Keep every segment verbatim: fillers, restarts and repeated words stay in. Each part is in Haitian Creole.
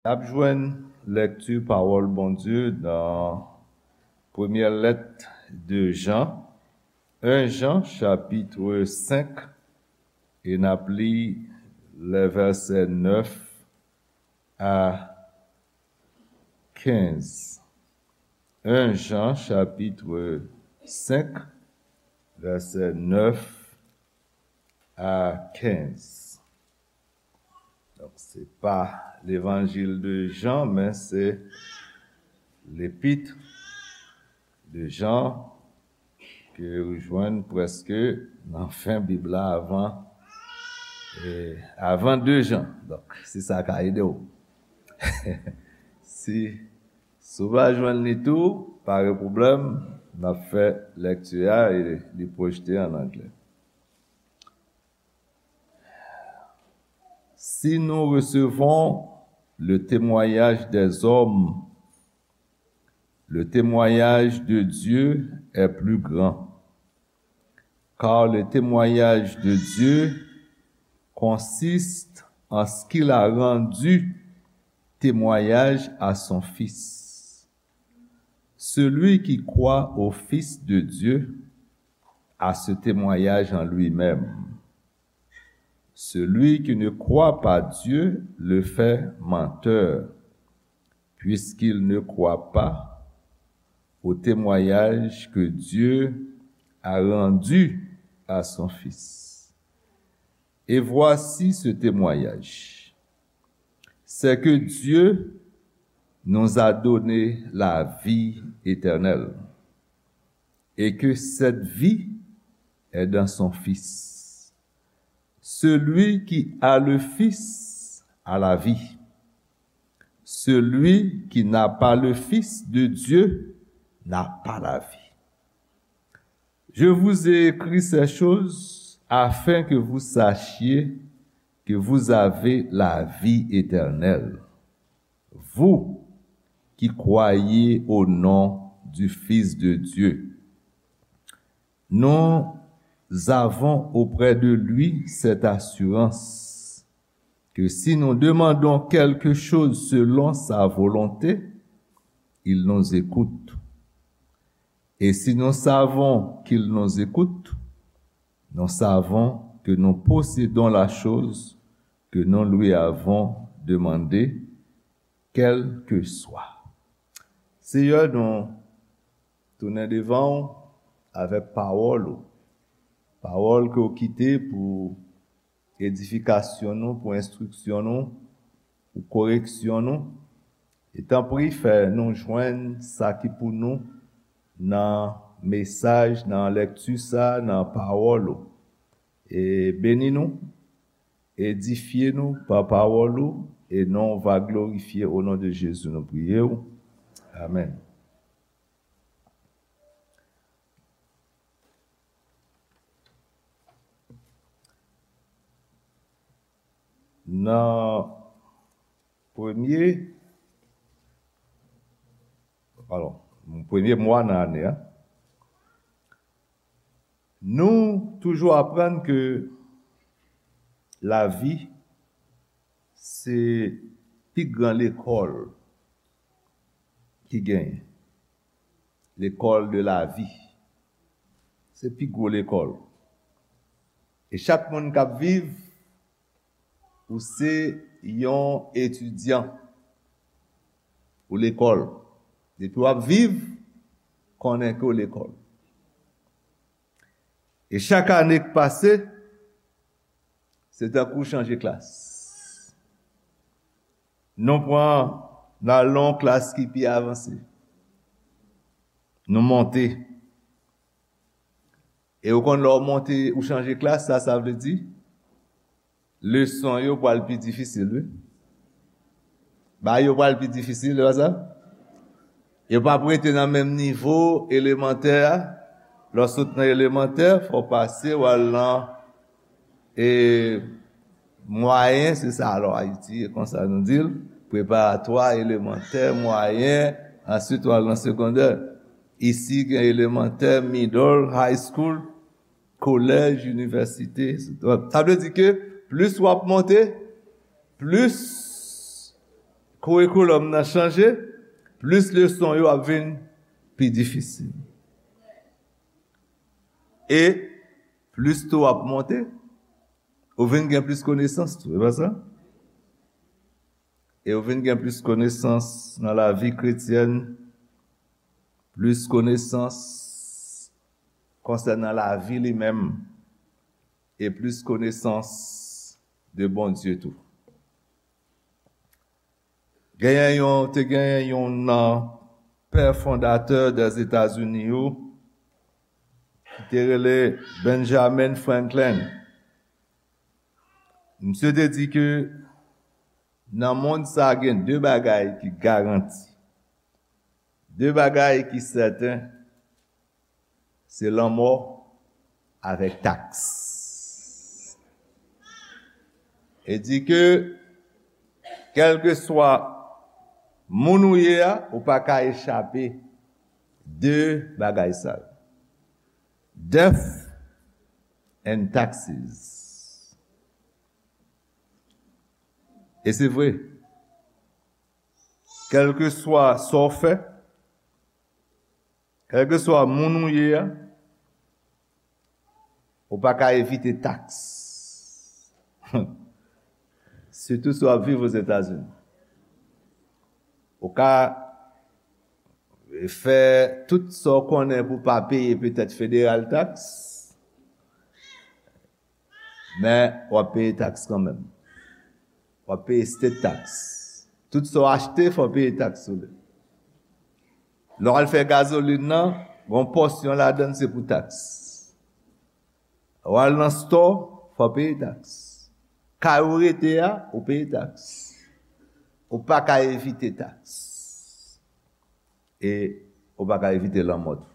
N ap jwenn lèkti pawòl Bondye nan premyè lèt de Jan, en Jan, chapit senk, e n ap li lè vèsè nèf a kenz. En Jan, chapit senk, vèsè nèf a kenz. Donk, se pa levanjil de Jan, men se lepit de Jan ke ou jwenn prèske nan fen Bib la avan, e, avan de Jan. Donk, si sa ka ede w. Si, si w pa jwenn li tou, pa gen pwoblèm, n ap fè lèkti a e li pwojte an anglè. Si nous recevons le témoignage des hommes, le témoignage de Dieu est plus grand, car le témoignage de Dieu consiste en ce qu'il a rendu témoignage à son Fils. Celui qui croit au Fils de Dieu a ce témoignage en lui-même. Celui qui ne croit pas Dieu le fait menteur, puisqu'il ne croit pas au témoignage que Dieu a rendu à son Fils. Et voici ce témoignage, c'est que Dieu nous a donné la vie éternelle, et que cette vie est dans son Fils. Celui qui a le Fils a la vie. Celui qui n'a pas le Fils de Dieu n'a pas la vie. Je vous ai écrit ces choses afin que vous sachiez que vous avez la vie éternelle, vous qui croyez au nom du Fils de Dieu. Nous avons auprès de lui cette assurance que si nous demandons quelque chose selon sa volonté, il nous écoute. Et si nous savons qu'il nous écoute, nous savons que nous possédons la chose que nous lui avons demandée, quelle que soit. Seyè, nou tounen devan w avèk pawòl ou. Pawòl ke w kite pou edifikasyon nou, pou enstriksyon nou, pou koreksyon nou. E tanpri, fè nou jwenn sa ki pou nou nan mesaj, nan lèkti sa, nan pawòl ou. E beni nou, edifye nou pa pawòl ou, e non w va glorifye. O non de Jezi, nou priye w. Amèn. Nan premye, alò, premye mwa nan ane a, nou toujou aprann ke lavi se pi gran lekòl ki genyen. L'école de la vie. Se pi gwo lekòl. E chak moun k ap viv, ou se yon etidyan pou lekòl. Depi w ap viv, konnen ke w lekòl. E chak ane k pase, se tankou w chanje klas. Nou pran, n al nan yon klas ki pi avanse. Nou monte. E ou konn lè w monte, ou chanje klas, sa, sa vle di leson yo pral pi difisil, wi. Bagay yo pral pi difisil, se pa sa? Yo p ap rete nan menm nivo elemantè a. Lè w sot nan elemantè, fò w pase, w al nan, e, mwayen, se sa, alò, Ayiti, e konsa nou di l, preparatwa, elemantè, mwayen, answit w al nan segondè. Isi, gen elemantè, middle, high school, kolèj, inivèsite, etsetera. Sa vle di ke plis w ap monte, plis kourikoulòm nan chanje, plis leson yo ap vin pi difisil. E plis tou w ap monte, ou vin gen plis konesans tou, e pa sa? E ou vin gen plis konesans nan lavi kretyèn, plis konesans konsènan lavi li menm, e plis konesans de Bondye tou. Genyen yon, te genyen yon nan pè fondatè Dèzetazini yo, ki te rele Benjamin Franklin. Misye te di ke nan mond sa gen de bagay ki garanti, de bagay ki sèten, se lanmò avèk taks. E di ke, kèlkeswa moun ou ye a, ou pa ka echape de bagay sa yo. Death and taxes. E se vre. Kèlkeswa sa w fè, kèlkeswa moun ou ye a, ou pa ka evite taks. Sitou si w ap viv Ozetazini. Ou ka fè tout sa w konnen pou w pa peye petèt federal tax, men w ap peye taks kanmenm. W ap peye state tax. Tout sa w achte, fò w peye taks sou li. Lè w al fè gazolin nan, gon pòsyon ladan l se pou taks. Lè w al nan store, fò w peye taks. Kay ou rete a, ou peye taks. Ou pa ka evite taks. E ou pa ka evite lanmò tou.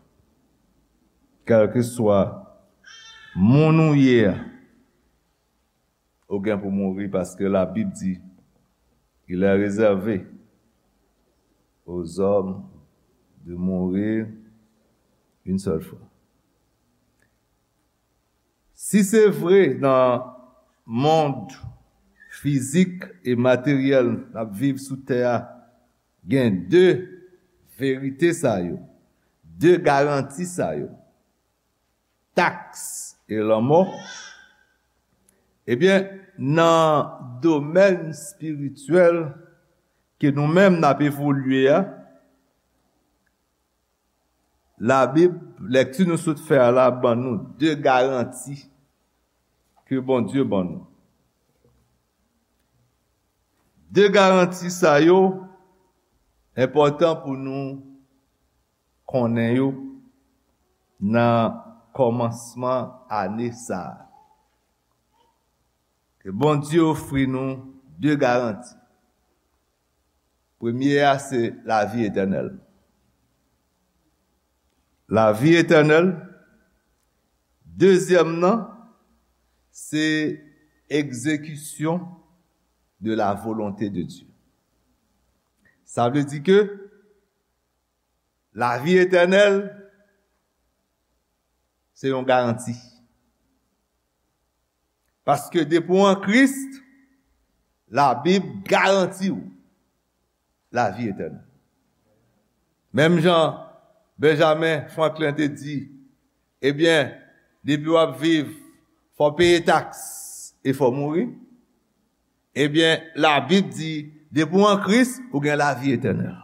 Kèlkeswa moun ou ye a, ou gen pou mouri, paske Labib di, il est réservé aux hommes de mourir une seule fois. Si se vre nan mond fizik e materyèl n ap viv sou tè a, gen de verite sa yo, de garanti sa yo, taks e lanmò, ebyen, nan domèn espirityèl ke nou menm n ap evolye a, Labib, lèkti nou sot fè a la, ban nou de garanti ke Bondye ban nou. De garanti sa yo enpòtan pou nou konnen yo nan kòmansman ane sa a. Ke Bondye ofri nou de garanti. Premye a, se lavi etènèl. Lavi etènèl. Dezyèm nan, se egzekisyon de la volonté de Dieu. Sa vle di ke lavi etènèl, se yon garanti. Paske depi w an Kris, Labib garanti w lavi etènèl. Menm jan Benjamin Franklin te di, ebyen, depi w ap viv, fò w peye taks e fò w mouri. Ebyen, Labib di, depi w an Kris, ou gen lavi etènèl.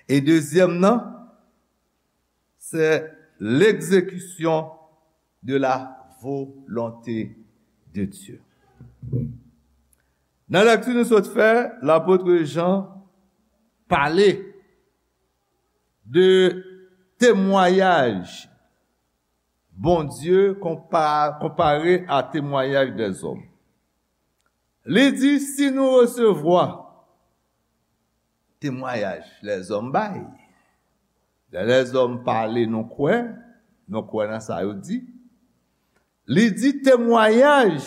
E dezyèm nan, c'est l'exécution de la volonté de Dieu. Nan lèkti nou sot fè, lapot Jan pale de temwayaj Bondye konpa-, konpare a temwayaj dèzòm. Li di, si nou resevwa temwayaj lèzòm bay, lè lèzòm pale, nou kwè, nou kwè nan sa yo di. Li di temwayaj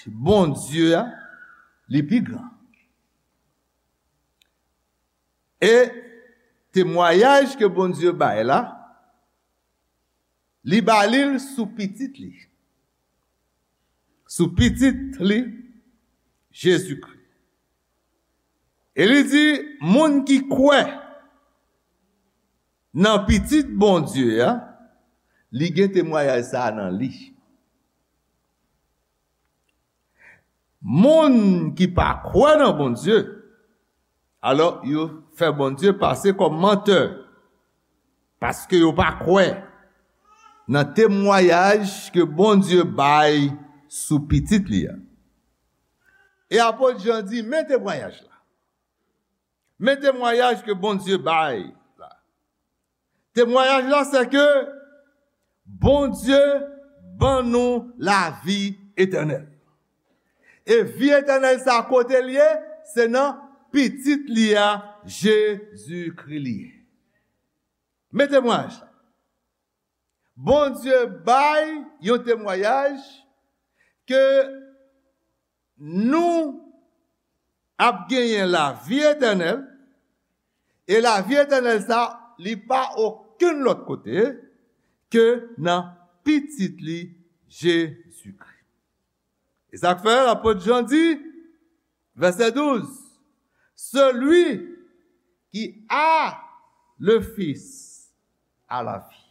Bondye a, li pi gran. E temwayaj ke Bondye bay la, li ba li l sou pitit li. Sou pitit li, Jezikri. E li di, moun ki kwè nan Pitit Bondye a, li gen temwayaj sa a nan li. Moun ki pa kwè nan Bondye, alò, yo fè Bondye pase kòm mantè, paske yo pa kwè nan temwayaj ke Bondye bay sou Pitit li a. E apot Jan di, men temwayaj la. Men temwayaj ke Bondye bay la. Temwayaj la, se ke Bondye ban nou lavi etènèl. E vi etènèl sa, kote l ye? Se nan Pitit li a, Jezikri, li ye. Men temwayaj la. Bondye bay yon temwayaj ke nou ap genyen lavi etènèl, e lavi etènèl sa, li pa okenn lòt kote ke nan Pitit li, Jezikri. E sa k fè lapot Jan di, vèsè douz, celui qui a le Fils a la vie.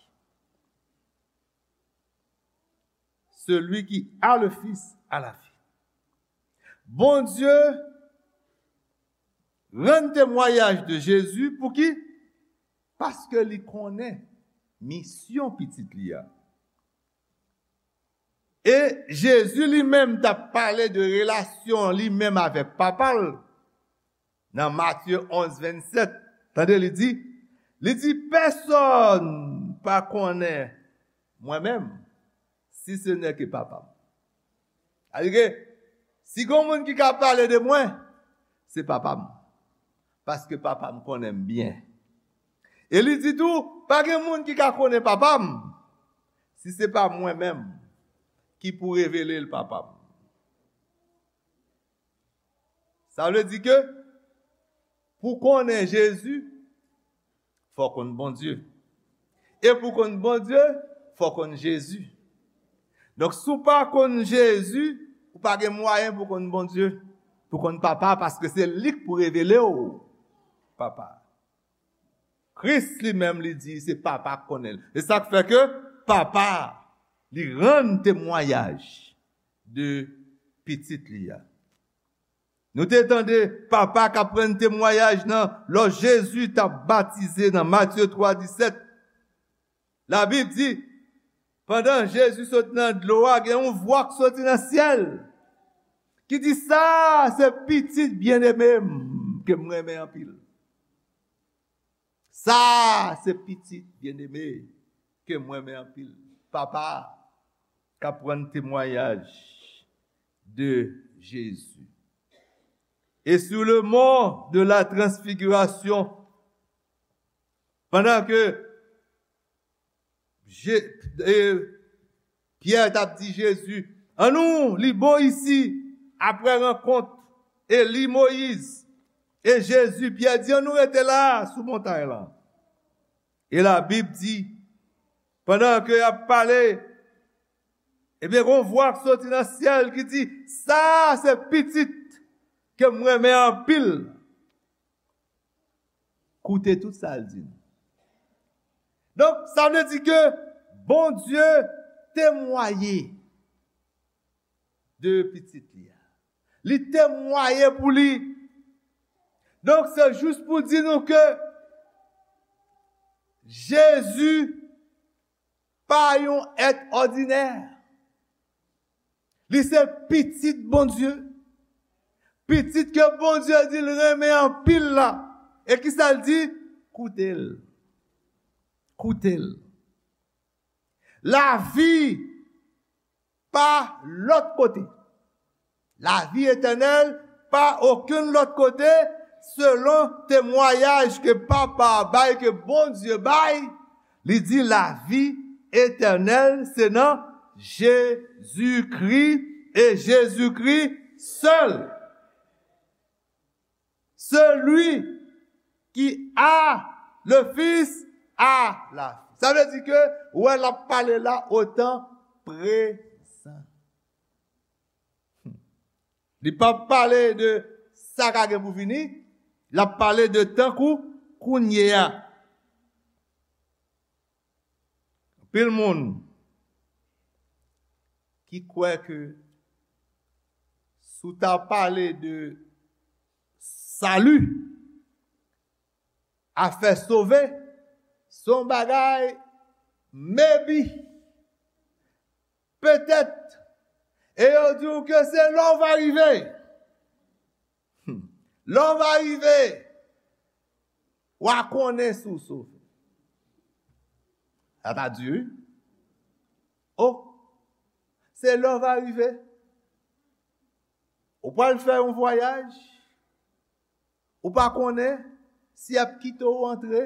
Celui qui a le Fils a la vie. Bondye rann temwayaj de Jezi pou ki? Paske li konnen misyon Pitit li a. E Jezi li menm t ap pale de relasyon li menm avèk Papa l nan Matye onz vennsèt. Tande, li di, li di, pèsonn pa konnen mwen menm, si se nè ke Papa m. Alike, si gon moun ki ka pale de mwen, se Papa m. Paske Papa m konnen m byen. E li di tou, pa gen moun ki ka konnen Papa m, si se pa mwen menm ki pou revele l Papa m. Sa vle di ke pou konnen Jezi, fò w konn Bondye. E pou konn Bondye, fò w konn Jezi. Donk, si w pa konn Jezi, ou pa gen mwayen pou konn Bondye, pou konn Papa, paske se li k pou revele w Papa. Kris li menm, li di se Papa k konnen l. E sa k fè ke Papa, li rann temwayaj de Pitit li a. Nou te tande Papa k ap rann temwayaj nan lò Jezi t ap batize nan Matye twa disèt. Labib di, pandan Jezi sot nan dlo a, gen yon vwa k soti nan syèl ki di, sa se Pitit byeneme m ke m renmen anpil. Sa se Pitit byeneme ke m renmen anpil. Papa k ap rann temwayaj de Jezi. Et sur le mont de la transfiguration, pandan ke Je, e, Pyè t ap di Jezi, annou li bò isi, apre rankont Eli, Moyiz, e Jezi, Pyè di, annou rete la, sou montay lan. E Labib di, pandan ke y ap pale, ebyen, gon vwa k soti nan syèl ki di, sa se Pitit ke m renmen anpil. Koute tout sa l di nou. Donk, sa vle di ke Bondye temwaye de Pitit li a. Li temwaye pou li. Donk, se jis pou di nou ke Jezi pa yon èt òdinè. Li se Pitit Bondye. Pitit ke Bondye di l renmen anpil la. E kisa l di? Koute l. Koute l. Lavi pa lòt kote. Lavi etènèl pa okenn lòt kote, selon temwayaj ke Papa a bay, ke Bondye bay, li di lavi etènèl se nan Jezikri e Jezikri sèl. Celui qui a le Fils a la vie. Sa vle di ke, wè, l ap pale la o tan prezan. Li p ap pale de sa k a gen pou vini, L ap pale de tankou kounye a. Anpil moun ki kwè ke si w ta pale de sali, afè sove, se yon bagay maybe, petèt, e yo di w ke se lè w va rive. Hmm. Lè w va rive, w a konnen si w sove. Sa ta di wi. O, se lè w va rive. Ou pral fè yon vwayaj, ou pa konnen si y ap kite w antre.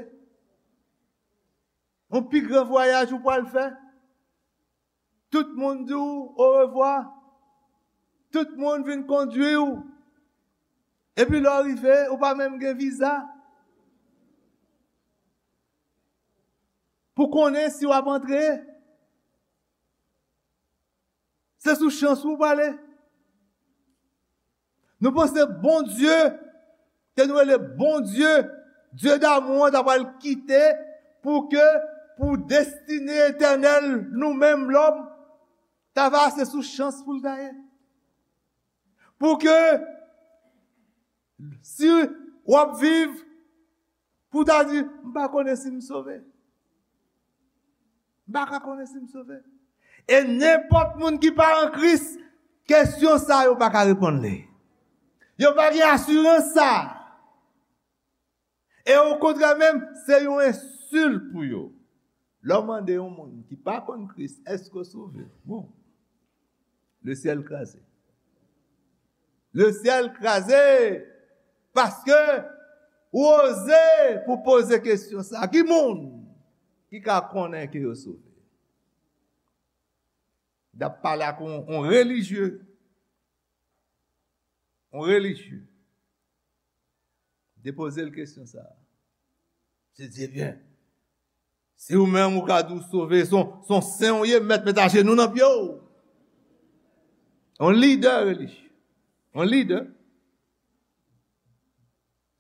Yon pi gran vwayaj ou pral fè. Tout moun di w orevwa. Tout moun vin kondui w. Epi lè w rive, ou pa menm gen viza pou konnen si w ap antre. Se sou chans ou pale. Nou panse Bondye, ke nou rele Bondye, Dye damou an, ta pral kite pou ke, pou destine etènèl nou menm lòm, ta va se sou chans pou l ta ye. Pou ke, si w ap viv, pou w ta di, "M pa konnen si m sove. M pa ka konnen si m sove." E nenpòt moun ki pa an Kris, kesyon sa yo pa ka reponn li. Yo pa gen asirans sa. E okontrè menm, se yon ensilt pou yo. Lè w mande yon moun ki pa konn Kris, "Èske w sove?" Bon, le syèl kraze. Le syèl kraze! Paske ou oze pou poze kesyon sa. Ki moun ki ka konnen ke yo sove? N ap pale ak yon, yon relijye. Yon relijye. Te poze l kesyon sa. Misye di, "Ebyen, si ou menm ou ka di w sove, se yon, se yon sen ou ye, m mèt met ajenou nan pye w." Yon lidè relijye. Yon lidè.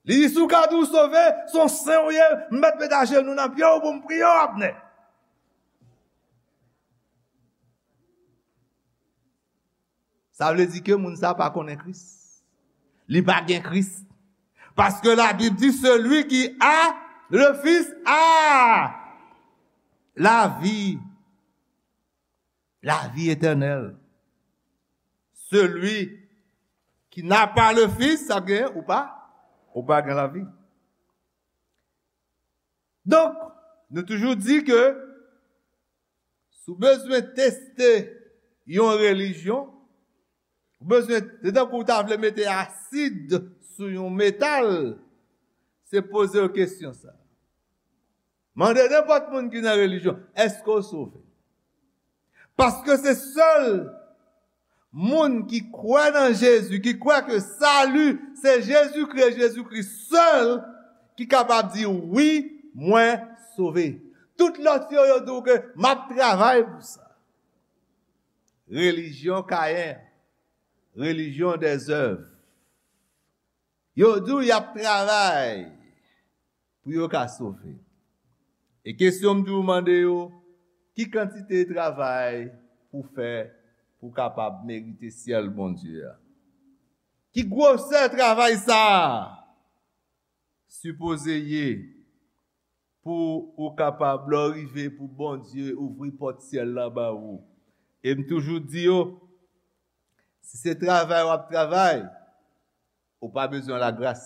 Li di, "Si w ka di w sove, se yon sen ou ye, m mèt met ajenou nan pye w pou m priye w, Abnè." Sa vle di ke moun sa pa konnen Kris. Li pa gen Kris. Paske Labib di, "Celui qui a le Fils a la vie." La vie éternelle. Celui qui n'a pas le Fils, sa gen, ou pa, ou pa gen lavi. Donk, nou toujou di ke si w bezwen teste yon relijyon, ou bezwen, se tankou w ta vle mete asid sou yon metal, se poze w kesyon sa. Mande nenpòt moun ki nan relijyon, "Èske w sove?" Paske se sèl moun ki kwè nan Jezi, ki kwè ke sali se Jezikri, Jezikri sèl ki kapab di, "Wi, mwen sove." Tout lòt yo, yo di w ke, "M ap travay pou sa." Relijyon Kayen, relijyon dèzèv. Yo di w y ap travay pou yo ka sove. E kesyon m toujou mande yo, ki kantite travay pou fè pou kapab merite syèl Bondye a? Ki gwosè travay sa a sipoze ye pou ou kapab, lè w rive, pou Bondye ouvri pòt syèl la ba ou? E m toujou di yo, si se travay w ap travay, ou pa bezwen lagras.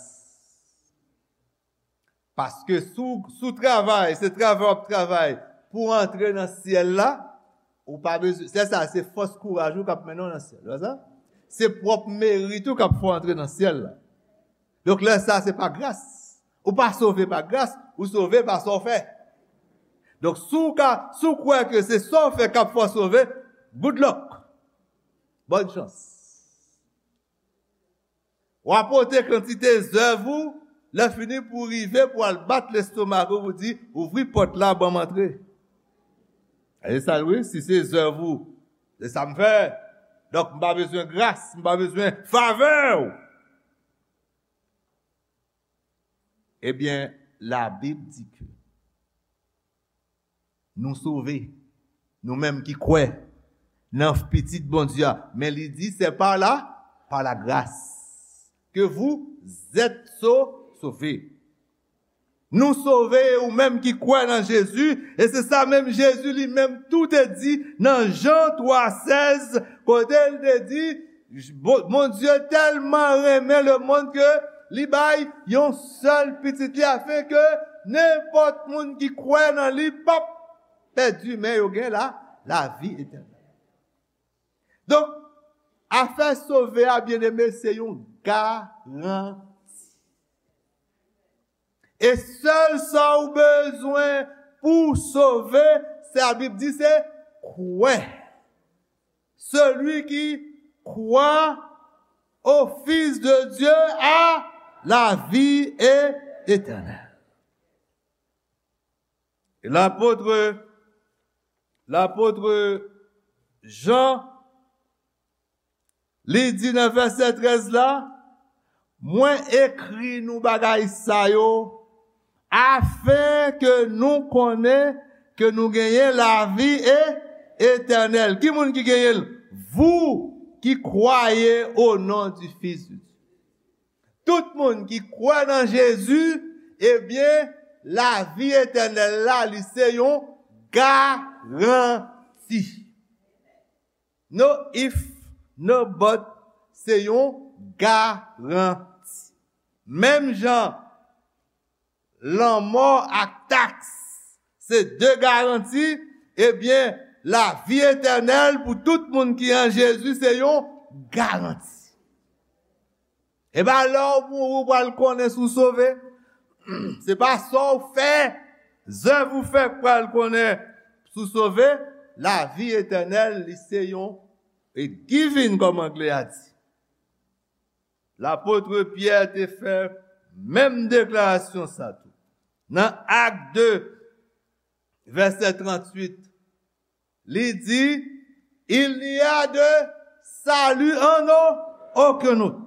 Paske si w, si w travay, se travay w ap travay pou w antre nan syèl la, ou pa bezwen, se sa, se fòs kouraj ou k ap mennen w nan syèl. Wè sa? Se pwòp merit ou k ap fè w antre nan syèl la. Donk, lè sa, se pa gras. Ou pa sove pa gras, ou sove pa sa w fè. Donk, si w ka, si w kwè ke se sa w fè k ap fè w sove, good luck. Bòn chans. W a pote kantite zèv ou, lè fini pou w rive pou w al bat lestomak ou, pou w di, "Ouvri pòt la, ban m antre." E sa l wi, si se zèv ou, se sa m fè. Donk, m pa bezwen gras, m pa bezwen favè w. Ebyen, Labib di ke nou sove, nou menm ki kwè nan Pitit Bondye a. Men li di, c'est par la, par la grâce que vous êtes sau- sauvés. Nou sove, ou menm ki kwè nan Jezi, e se sa menm Jezi li menm tou te di nan Jan twa sèz, kote l te di, Bo- Bondye tèlman renmen lemonn ke li bay yon sèl pitit li, afin ke nenpòt moun ki kwè nan li p ap pèdi, men yo gen la, lavi etènèl. Donk, afè sove a, byeneme, se yon garanti. E sèl sa ou bezwen pou w sove, se Labib di, se kwè. Celui qui croit au Fils de Dieu a la vie éternelle. E lapot, lapot Jan, li di nan vèsè trèz la, mwen ekri nou bagay sa yo, afen ke nou konnen ke nou genyen lavi e etènèl. Ki moun ki genyen l? Vous qui croyez au nom du Fils de Dieu. Tout moun ki kwè nan Jezi, ebyen, lavi etènèl la, li se yon garanti. No if, no but, se yon garanti. Menm jan lanmò ak taks se de garanti, ebyen, lavi etènèl pou tout moun ki an Jezi se yon garanti. E pa lè w mouri w pral konnen si w sove. Se pa sa w fè, zèv ou fè k pral konnen si w sove. Lavi etènèl, li se yon a given, kòm anglè a di. Lapot Pyè te fè menm deklarasyon sa tou. Nan Ak de, vèsè tranntuit, li di, il n'y a de salut en aucun autre.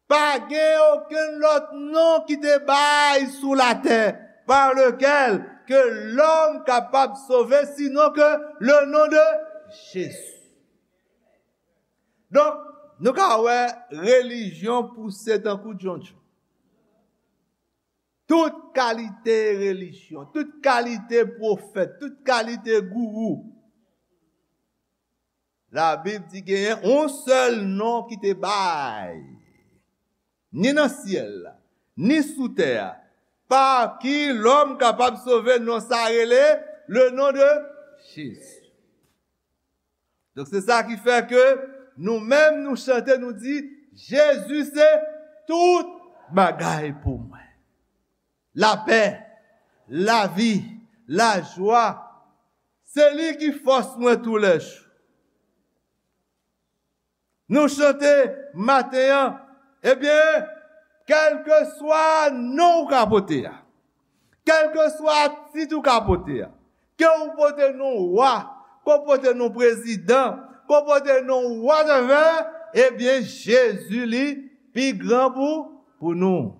Pa gen okenn lòt non ki te bay sou latè par lequel que l'homme kapab sove, sinon que le nom de Jésus. Donk, nou ka wè relijyon pouse tankou djondjon. Tout kalite relijyon, tout kalite pwofèt, tout kalite gourou. Labib di genyen yon sèl non ki te bay, ni nan syèl la, ni sou tè a, pa ki lòm kapab sove, non sa rele le nom de Jésus. Donk, se sa ki fè ke nou menm, nou chante, nou di, Jezi se tout bagay pou mwen. Lapè, lavi, lajwa, se li ki fòs mwen toulèjou. Nou chante maten an, ebyen, kèlkeswa non ou ka pote a, kèlkeswa tit ou ka pote a, ke ou pote non wa, ke ou pote non prezidan, ke ou pote non whatever, ebyen, Jezi li pi gran pou, pou nou.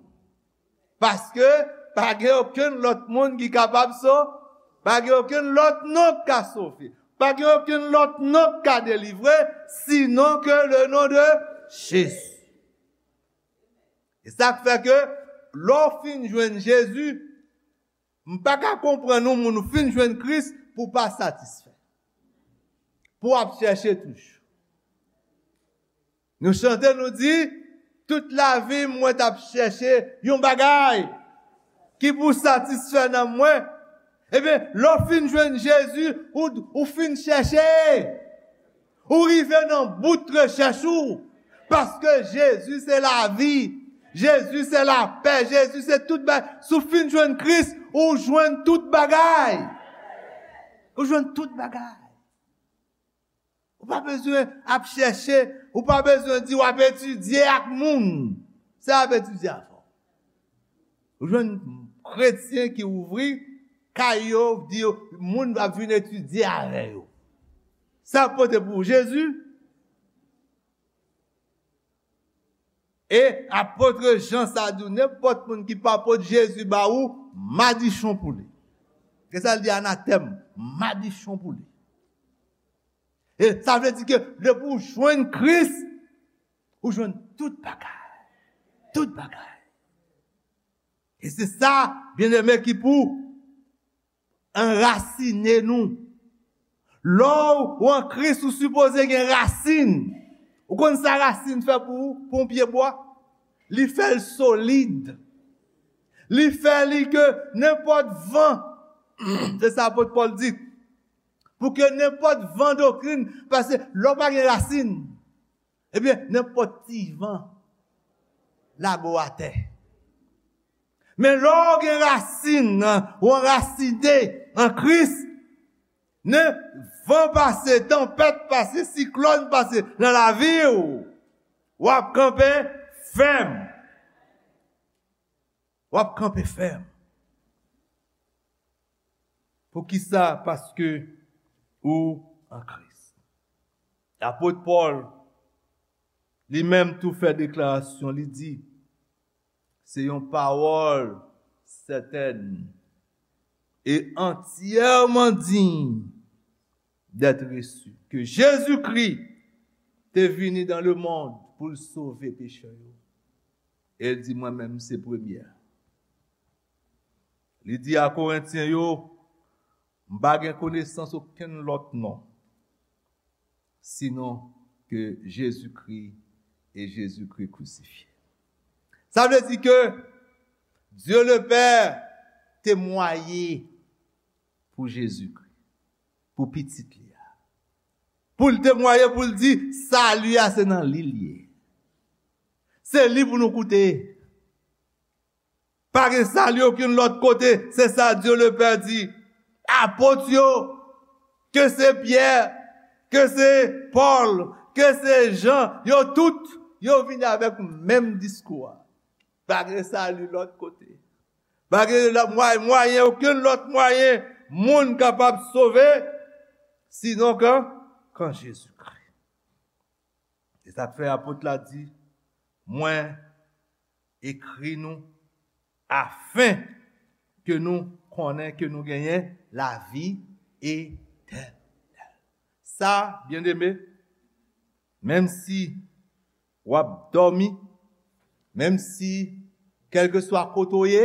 Paske pa gen okenn lòt moun ki kapab sove, pa gen okenn lòt non k ka sove, pa gen okenn lòt non k ka delivre, sinon ke le nom de Jésus. E sa k fè ke lè w fin jwenn Jezi, m pa ka konprann yon moun ou fin jwenn Kris pou w pa satisfè, pou w ap chèche toujou. Nou chante, nou di, tout lavi m, mwen t ap chèche yon bagay ki pou satisfè nanm mwen. Ebyen, lè w fin jwenn Jezi, ou, ou fin chèche. Ou rive nan bout rechèch ou. Paske Jezi se lavi. Jezi se lapè. Jezi se tout bagay. Si w fin jwenn Kris, ou jwenn tout bagay. Ou jwenn tout bagay. Ou pa bezwen ap chèche, ou pa bezwen di w ap etidye ak moun. Sa y ap etidye avè w? Ou jwenn kretyen ki ouvri kay yo, di yo, moun ap vin etidye avè yo. Sa ap pote pou ou Jezi? E apot Jan sa di w, nenpòt moun ki pa pot Jezi ba ou, madichon pou li. Gen sa l di, anatèm, madichon pou li. E sa vle di ke depi w jwenn Kris, ou jwenn tout bagay. Tout bagay. E se sa, byeneme, ki pou anrasine nou. Lè w an Kris, ou sipoze gen rasin. Ou konn sa rasin fè pou ou, pou yon pye bwa? Li fè l solid. Li fè li ke nenpòt van, se sa apot Pòl di, pou ke nenpòt van doktrin, paske lè w pa gen rasin, ebyen, nenpòt ti van lage w atè. Men lè w gen rasin, ou anrasine an Kris, nen van pase, tanpèt pase, siklòn pase nan lavi w, w ap kanpe fèm. W ap kanpe fèm. Poukisa? Paske ou an Kris. Apot Pòl, li menm tou fè deklarasyon, li di, se yon pawòl sètèn e antyèman diy d'être reçu, ke Jezikri te vini dans le monde pou l sove pechè yo. E l di, mwen menm se premye a. Li di a Korentyen yo, m pa gen konesans okenn lòt non, sinon ke Jezikri e Jezikri krisifye. Sa vle di ke Dye Lepè temwaye pou Jezikri, pou pitit li a. Pou l temwaye, pou l di, sali a se nan li l ye. Se li pou nou koute. Pa gen sali okenn lòt kote, se sa Dye Lepè di. Apot yo, ke se Pyè, ke se Pòl, ke se Jan, yo tout, yo vini avèk menm diskou a. Pa gen sali lòt kote. Pa gen lòt mwayen, mwayen, okenn lòt mwayen moun kapab sove, sinon kan, kan Jezikri. E sa k fè apot la di, mwen ekri nou afen ke nou konnen ke nou genyen lavi etènèl. Sa, byeneme, menm si w ap dòmi, menm si, kèlkeswa kote w ye,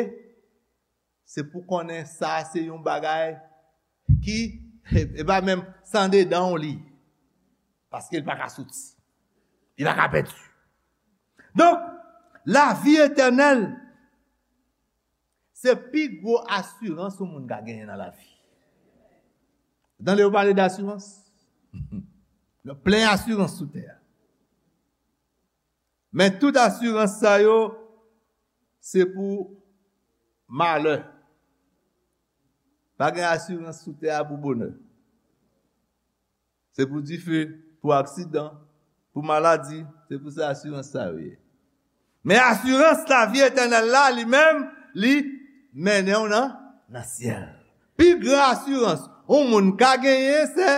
se pou konnen sa se yon bagay ki, e pa menm san dedan w li, paske l pa ka soti, li pa ka pèdi. Donk, lavi etènèl, se pi gwo asirans yon moun ka genyen nan lavi. Tande yo pale d asirans? Gen plen asirans sou tè a. Men tout asirans sa yo, se pou malè. Pa gen asirans sou tè a pou bonè. Se pou dife, pou aksidan, pou maladi, se pou sa asirans sa yo ye. Men asirans lavi etènèl la, li menm, li mennen w nan, nan syèl. Pi gran asirans yon moun ka genyen, se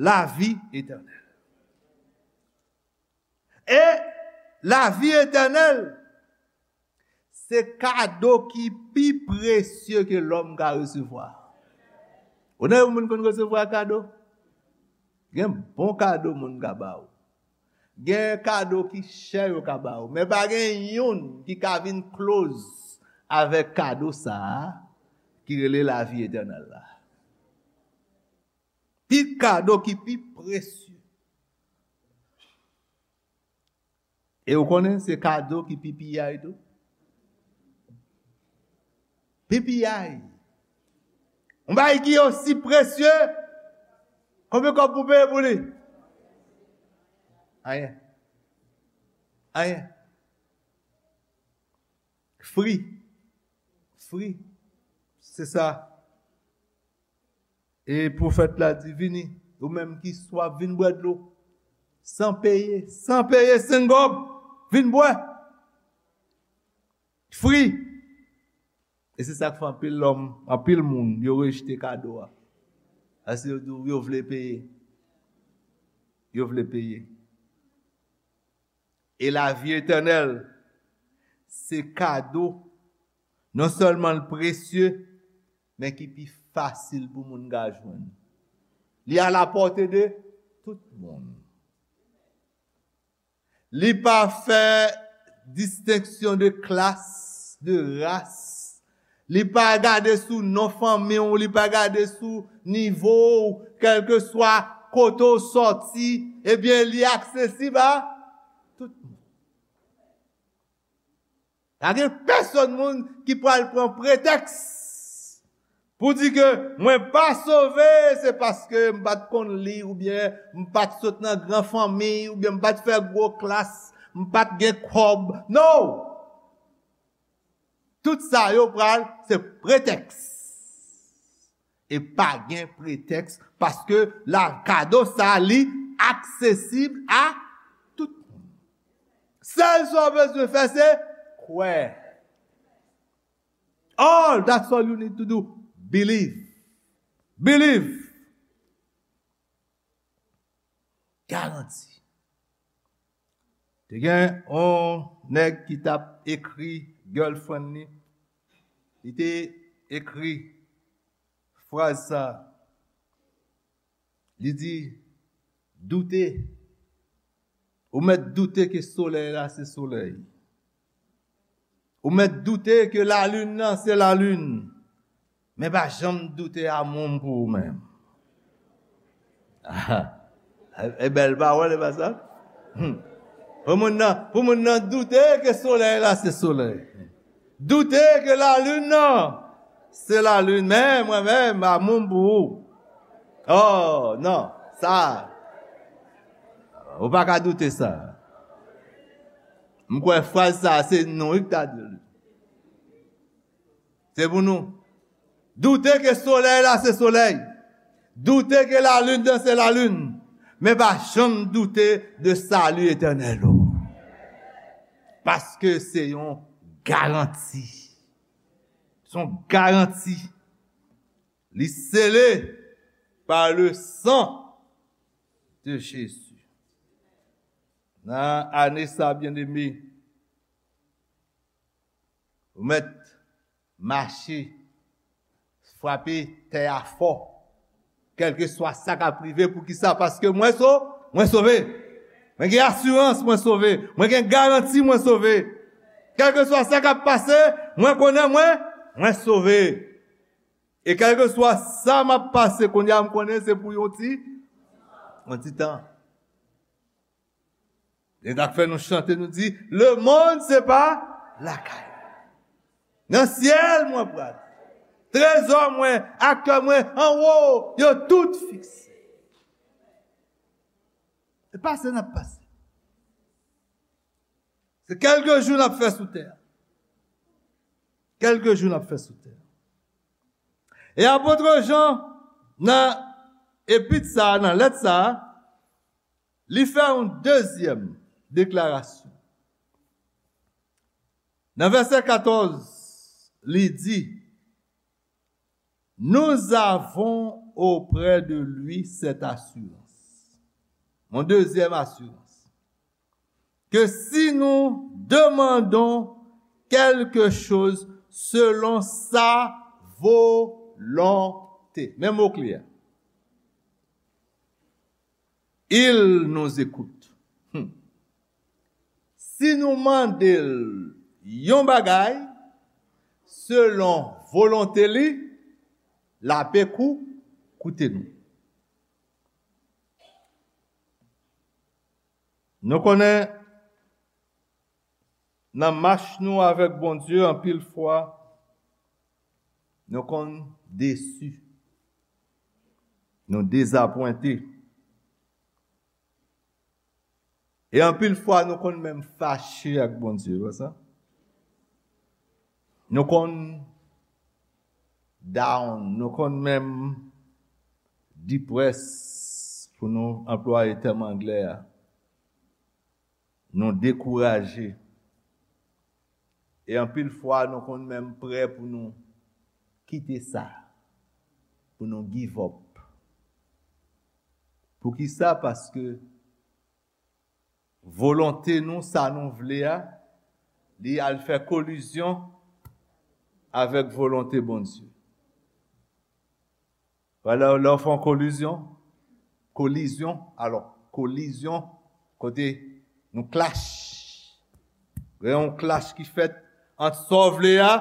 lavi etènèl. E lavi etènèl, se kado ki pi presye ke lòm ka resevwa. Ou nan yon moun konn resevwa kado? Gen bon kado moun ka ba ou. Gen kado ki chè yo ka ba ou. Men pa gen youn ki ka vin close avèk kado sa a ki rele lavi etènèl la. Pi kado ki pi presye. E ou konnen se kado ki pi piyay tou. Pi piyay. Yon bagay ki osi presye, konbyen kòb pou peye pou li? Anyen. Anyen. Fri. Fri. Se sa. E pwofèt la di, vini, ou menm ki swaf, vin bwè dlo. San peye, san peye, senk gòb, vin bwè. Fri. E se sa k fè anpil lòm, anpil moun, yo rejte kado a. Paske yo di w yo vle peye. Yo vle peye. E lavi etènèl, se kado non sèlman l presye, men ki pi fasil pou moun ka jwenn. Li a la pòte de tout moun. Li pa fè distenksyon de klas, de ras. Li pa gade sou non fanmi w, li pa gade sou nivo w, kèlkeswa kote w sòti, ebyen, li aksesib a tout moun. Pa gen pèsonn moun ki pral pran pretèks pou di ke mwen pa sove, se paske m pa t konn li, oubyen m pa t sot nan gran fanmi, oubyen m pa t fè gwo klas, m pa t gen kòb. No! Tout sa yo pral se pretèks. E pa gen pretèks, paske la kado sa li aksesib a tout moun. Sèl sa w bezwen fè se kwè. All, that's all you need to do. Believe. Believe. Garanti. Te gen yon nèg ki t ap ekri girlfriend li. Li te ekri fraz sa. Li di, doute. Ou mèt doute ke solèy la se solèy. Ou mèt doute ke lalin nan se lalin. Men pa janm doute amour m pou ou menm. E bèl pawòl, e pa sa? Hmm. Pou moun nan, pou moun nan doute ke solèy la se solèy. Doute ke lalin nan se lalin. Men mwen menm, amour m pou ou. Oh, non, sa. Ou pa ka doute sa. M kwè fraz sa, se nou wi ki ta di l. Se pou nou. Doute ke solèy la se solèy. Doute ke lalin nan se lalin. Men pa janm doute de sali etènèl ou. Paske se yon garanti. Se yon garanti. Li sele pa le san de Jezi. Nan ane sa, byeneme, ou mèt mache, frape tè a fò. Kèlkeswa sa k ap rive, poukisa? Paske mwen so, mwen sove. Mwen gen asirans, mwen sove. Mwen gen garanti, mwen sove. Kèlkeswa sa k ap pase, mwen konnen mwen, mwen sove. E kèlkeswa sa m ap pase, kounye a m konnen se pou yon ti, yon ti tan. E sa k fè nou chante, nou di, lemonn se pa lakay. Nan syèl mwen pral. Trezò mwen, ak kè mwen anwo, yo tout fikse. E pase n ap pase. Se kèlke jou n ap fè sou tè a. Kèlke jou n ap fè sou tè a. E apot Jan, nan epit sa a, nan lèt sa a, li fè yon dezyèm deklarasyon. Nan vèsè katòz, li di, nous avons auprès de lui cette assurance. Yon dezyèm asirans. Que si nous demandons quelque chose selon sa volonté. Men mo kle a. Il nous écoute. Hmm. Si nou mande l yon bagay, selon volonte li, l ape kou, koute nou. Nou konnen nan mach nou avèk Bondye, anpil fwa, nou konn desi. Nou dezapwente. E anpil fwa, nou konn menm fache ak Bondye, pa sa? Nou konn down, nou konn menm depressed, pou nou anplwaye tèm anglè a. Nou dekouraje. E anpil fwa, nou konn menm prè pou nou kite sa, pou nou give up. Poukisa? Paske volonte nou, sa nou vle a, li al fè kolizyon avèk volonte Bondye. Wè, lè, lè w fè yon kolizyon, kolizyon, alò, kolizyon, kote nou klach. Gen yon klach ki fèt ant sa w vle a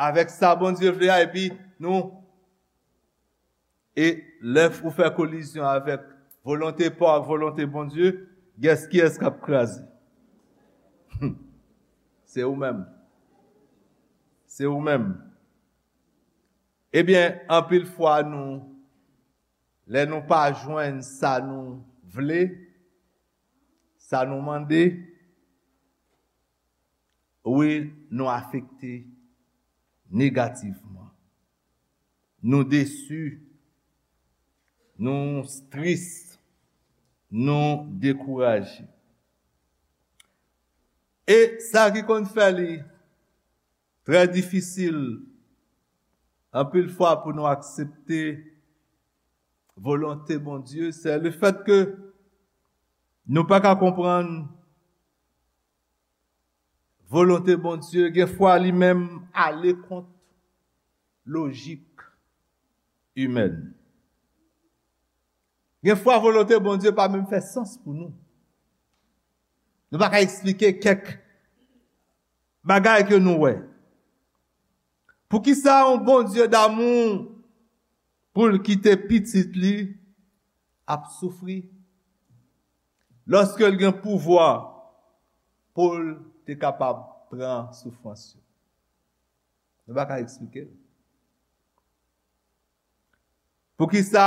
avèk sa Bondye vle a, epi nou, e lè ou fè kolizyon avèk volonte pa w ak volonte Bondye, gès kiyès k ap kraze? Se ou menm. Se ou menm. Ebyen, anpil fwa nou, lè nou pa jwenn sa nou vle, sa nou mande, wi, nou afekte negativman. Nou desi, nou tris, nou dekouraje. E sa ki konn fè li trè difisil anpil fwa pou nou aksepte volonte Bondye, se le fèt ke nou pa ka konprann volonte Bondye, gen fwa li menm ale kont lojik imèn. Gen fwa volonte Bondye pa menm fè sans pou nou. Nou pa ka eksplike kèk bagay ke nou wè. Poukisa yon Bondye damou pou l kite pitit li ap soufri, lòske l gen pouvwa pou l te kapab pran soufrans yo? Nou pa ka eksplike l. Poukisa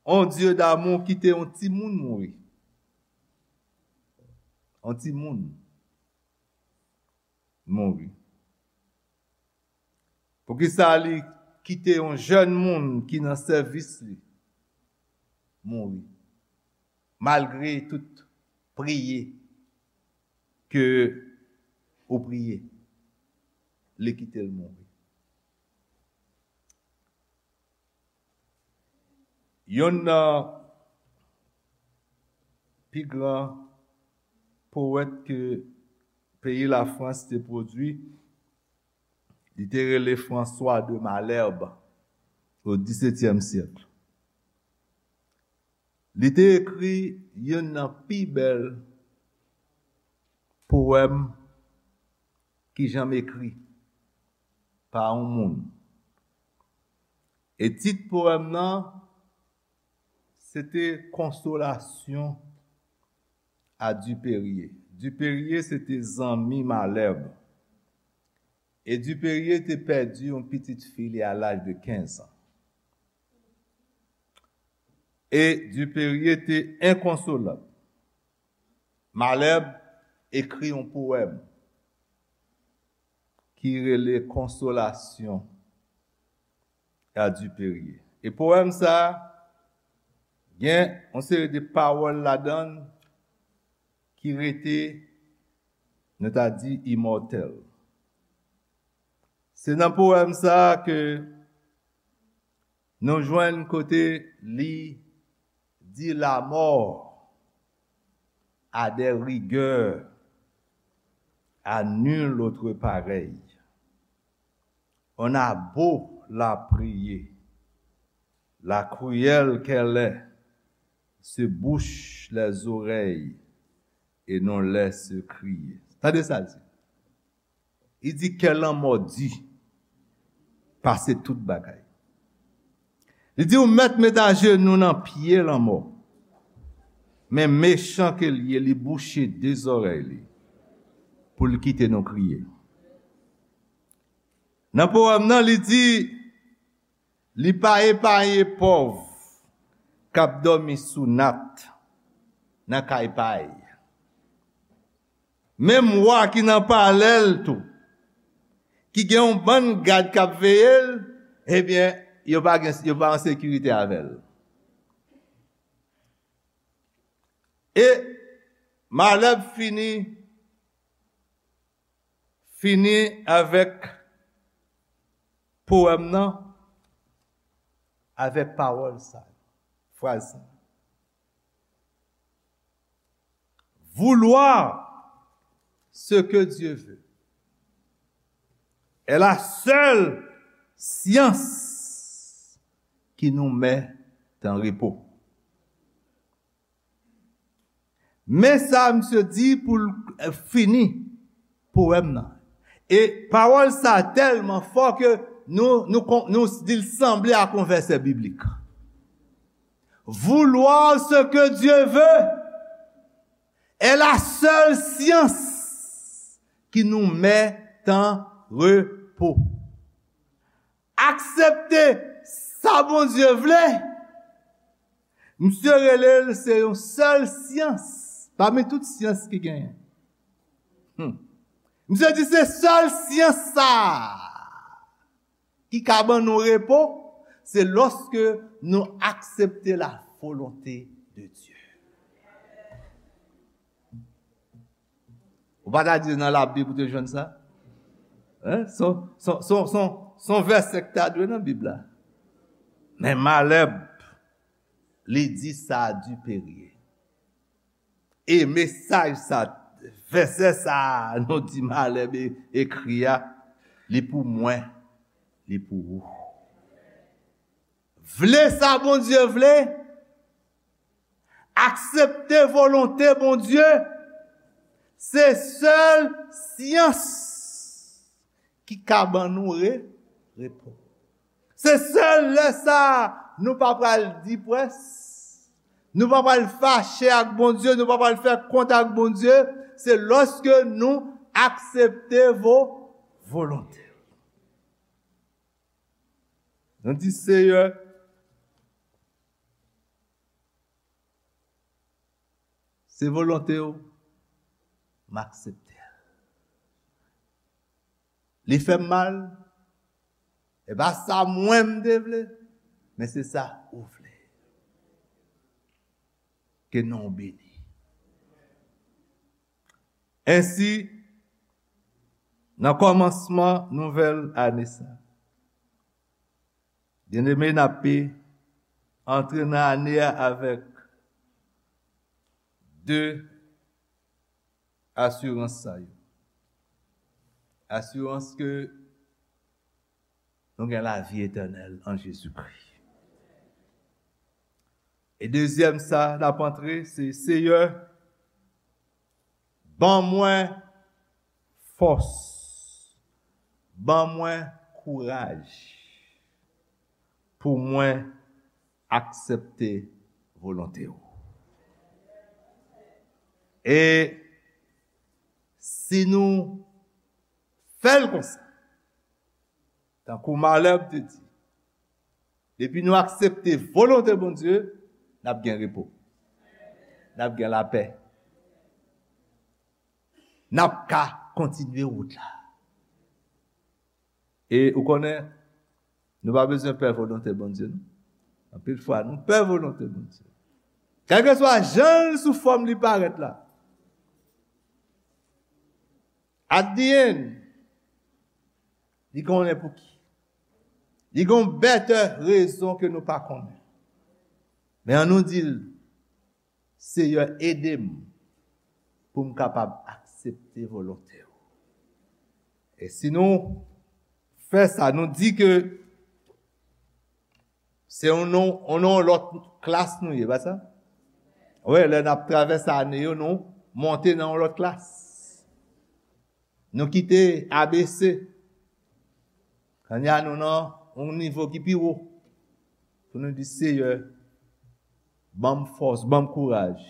yon Dye damou kite yon timoun mouri? Yon timoun mouri. Poukisa li kite yon jèn moun ki nan sèvis li mouri? Malgre tout priye ke ou priye, li kite l mouri. Yonn nan pi gran powèt ke peyi Lafrans te pwodui, li te rele François de Malherbe o disetyèm syèk. Li te ekri yonn nan pi bèl powèm ki janm ekri pa yon moun. E tit powèm nan, se te Consolation à Dupérier. Dupérier se te zanmi Malherbe. E Dupérier te pèdi yon pitit fi li a laj de kenz an. E Dupérier te enkonsolab. Malherbe ekri yon powèm ki rele Consolation à Dupérier. E powèm sa a gen yon seri de pawòl ladan l ki rete, nou ta di, imòtèl. Se nan powèm sa a ke nou jwenn kote li di la mort a des rigueurs à nul autre pareil. On a beau la prier, la cruelle qu'elle est, se bouche les oreilles et non laisse crier. Tande sa l di. Li di kè lanmò di pase tout bagay. Li di ou mèt met ajenou nan pye lanmò. Men mechan ke l ye, li bouche de zòrèy li pou l kite nou kriye. Nan powèm nan, li di, li pa epaye pòv k ap dòmi sou nat nan kay pa y. Menm wa ki nan palè l tou, ki gen yon bann gad k ap veye l, ebyen, yo pa gen, yo pa an sekirite avè l. E Malherbe fini, fini avèk powèm nan, avèk pawòl sa, fraz sa. Vouloir Ce que Dieu veut est la seule science qui nous met en repos. Men sa misye di pou l, eh, fini powèm nan. E pawòl sa tèlman fò ke nou, nou, kon- nou di l sanble ak yon vèsè biblik. Vouloir ce que Dieu veut est la seule science qui nous met en repos. Aksepte sa Bondye vle, misye rele l se yon sèl syans pami tout syans ki genyen. Hmm. Misye di se sèl syans sa a ki ka ban nou repo, se lòske nou aksepte la volonté de Dieu. Ou pa ta di nan Labib ou te jwenn sa? Hein? Son, son, son, son, son vèsè ki ta dwe nan Bib la. Men Malèb, li di sa a Dipèrye. E mesaj sa, vèsè sa a, nou di Malèb e- ekri a, li pou mwen, li pou ou. Vle sa Bondye vle, aksepte volonte Bondye, se sèl syans ki ka ban nou re- repo. Se sèl lè sa a nou pa pral deprès, nou pa pral fache ak Bondye, nou pa pral fè kont ak Bondye, se lòske nou aksepte vo- volonte. Nou di, Seyè, se volonte w, m aksepte l. Li fè m mal, e pa sa mwen m te vle, men se sa ou vle. Ke non w beni. Ensi, nan kòmansman nouvèl ane sa, byeneme, n ape antre nan ane a avèk de asirans sa yo. Asirans ke nou gen lavi etènèl an Jezikri. E dezyèm sa n ap antre, se, Seyè, ban mwen fòs, ban mwen kouraj pou mwen aksepte volonte w. E si nou fè l konsa, tankou Malèb te di, depi nou aksepte volonte Bondye, n ap gen repo. N ap gen lapè. N ap ka kontinye wout la. E ou konnen, nou pa bezwen pè volonte Bondye, non. Anpil fwa, nou pè volonte Bondye. Kèlkeswa jan l sou fòm li parèt la. At the end, li konnen pou ki. Li gen yon bètè rezon ke nou pa konnen. Men an nou di l, Seyè, ede m pou m kapab aksepte volonte w. E si nou fè sa, nou di ke se yon non, yon non lòt klas nou ye, pa sa? Wi, lè n ap travèse ane yo, nou monte nan yon lòt klas. Nou kite A B C. Kounye a nou nan yon nivo ki pi wo. Pou nou di, Seyè, ban m fòs, ban m kouraj.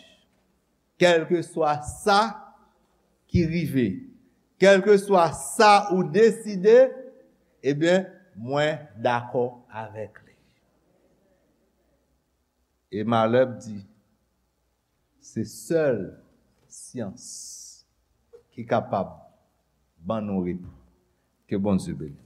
Kèlkeswa sa ki rive, kèlkeswa sa ou deside, ebyen, mwen dakò avèk li. E Malèb di, se sèl syans ki kapab ban nou repo. Ke Bondye beni.